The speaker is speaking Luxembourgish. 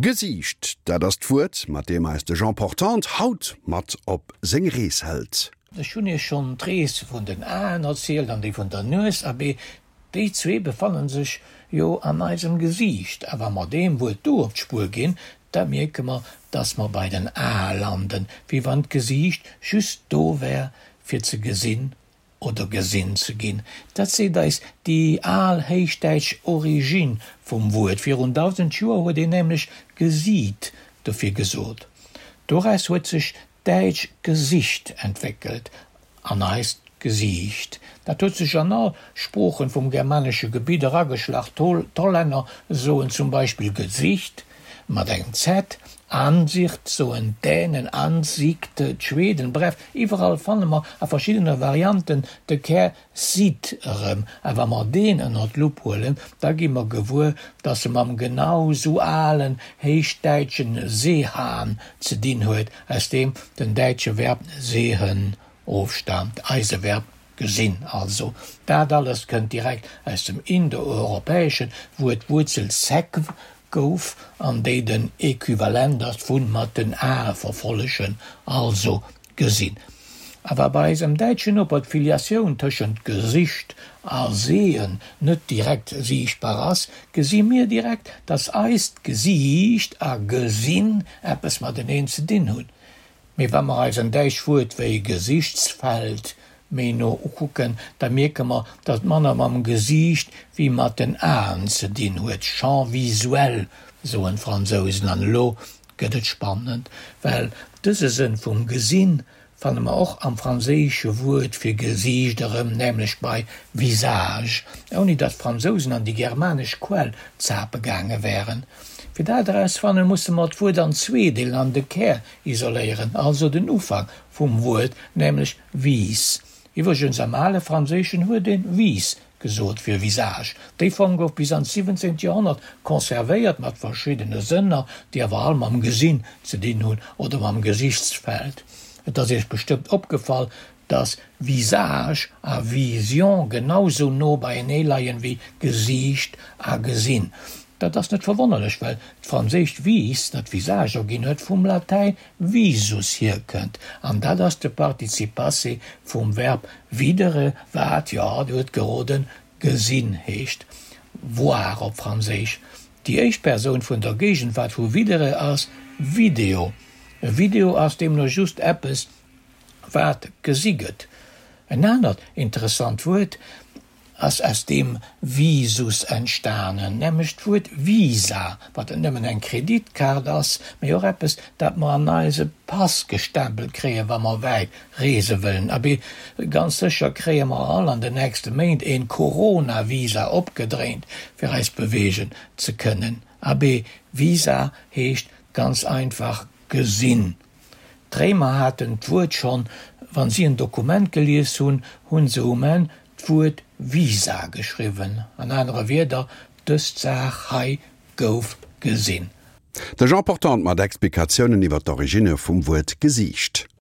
Gesiicht, dat ass d'Wuert, mat deem eis de Jean Portante haut mat op seng Rees hëlt. Ech hunn Iech schonn d'Rees vun den Aen erzielt an déi vun der Nues, abee, déi zwee befannen sech jo an eisem Gesiicht. A wa mer deem Wuert do op d'Spuer ginn, da mierke mer, dass mer bei den Ae landen, wéi wann d'Gesiicht just do wär, fir ze gesinn oder gesinn ze ginn. Dat seet eis déi al héichdäitsch Origine vum Wuert. Virun 1.000 Joer huet een nämlech gesiit dofir gesot. Doraus huet sech d'däitsch Gesicht entwéckelt an eist Gesiicht. Dat huet sech an all Sproochen vum germanesche Gebitt erageschlach. D'Hollänner soen zum Beispill Gezicht mat engem Z, Ansicht soen d'Dänen, Ansikt d'Schweden, bref, iwwerall fanne mer a verschiddene Varianten de Kär sit erëm. A wa mer deen ënner d'Lupp huelen, da gi mer gewuer, dass e mam genau sou alen héichdäitschen sehan ze dinn huet, aus deem den däitsche Verb sehen ofstaamt, eise Verb gesinn also. Dat alles kënnt direkt aus dem Indoeuropäeschen, wou et d'Wuerzel sekw gouf an déi den Equivalent ass vun mat den Ae verfollegen, also gesinn. A wa bei eisem däitschen Noper d'Filiatioun tëschent Gesicht a sehen net direkt siichtbar ass, gesi mir direkt, dass eist Gesiicht a gesinn eppes mateneen ze dinn hunn. Mee wa mer eis en däischt Wuert wéi Gesichtsfeld méi no ukucken, da mierke mer, datt et manner mam Gesiicht wéi mat den Aen ze dinn huet, Champ visuel soen d'Fransousen. An elo gëtt et spannend, well dëse Sënn vum Gesinn fanne mer och am franséische Wuert fir Gesiicht erëm, nämlech bei visage, ouni datt d'Fransousen an déi germanesch Quell zape gaange wären. Fir dat erausfannen, musse mer d'Wuert an zwee deelen an de Kär isoléieren, also den Ufank vum Wuert, nämlech vis. Iwwregens, am ale Franséischen huet een vis gesot fir visage. Déi Form gouf bis an d'siwwenzéngt Joerhonnert conservéiert, mat verschiddene Sënner, déi awer all mam Gesinn ze dinn hunn oder mam Gesichtsfeld. Et ass Iech bestëmmt opgefall, dass Visage a Vision genau sou no beienee leien wéi Gesiicht a Gesinn. Dat ass net verwonnerlech, well d'franséischt vis, dat visage erginn huet, vum Latäin visus hierkënnt, an dat ass de Participe passé vum Verb videre, wat, jo, Dir hutt geroden, gesinn heescht, voir op Franséisch. Déi éischt Persoun vun der Géigenwaart vu videre ass video. E Video ass deemno just eppes, wat gesi gëtt. En anert interessant Wuert ass aus deem Visus entstanen, nämlech d'Wuert Visa, wat net nëmmen eng Kreditkaart ass, mee och eppes, dat mer an eise Pass gestempelt kréien, wa mer wäit reese wëllen. Abee, ganz sécher kréie mer all an den nächste Méint een Corona-Visa opgedréint, fir eis beweegen ze kënnen. Abee, Visa heescht ganz einfach gesinn. D'Réimer haten d'Wuert schonn, wann si en Dokument gelies hunn, hunn se um Enn d'Wuert visa geschriwwen. An anere Wierder, dës Saach hei gouf gesinn. De Jean Portante mat Explikatiounen iwwer d'Originne vum Wuert Gesiicht.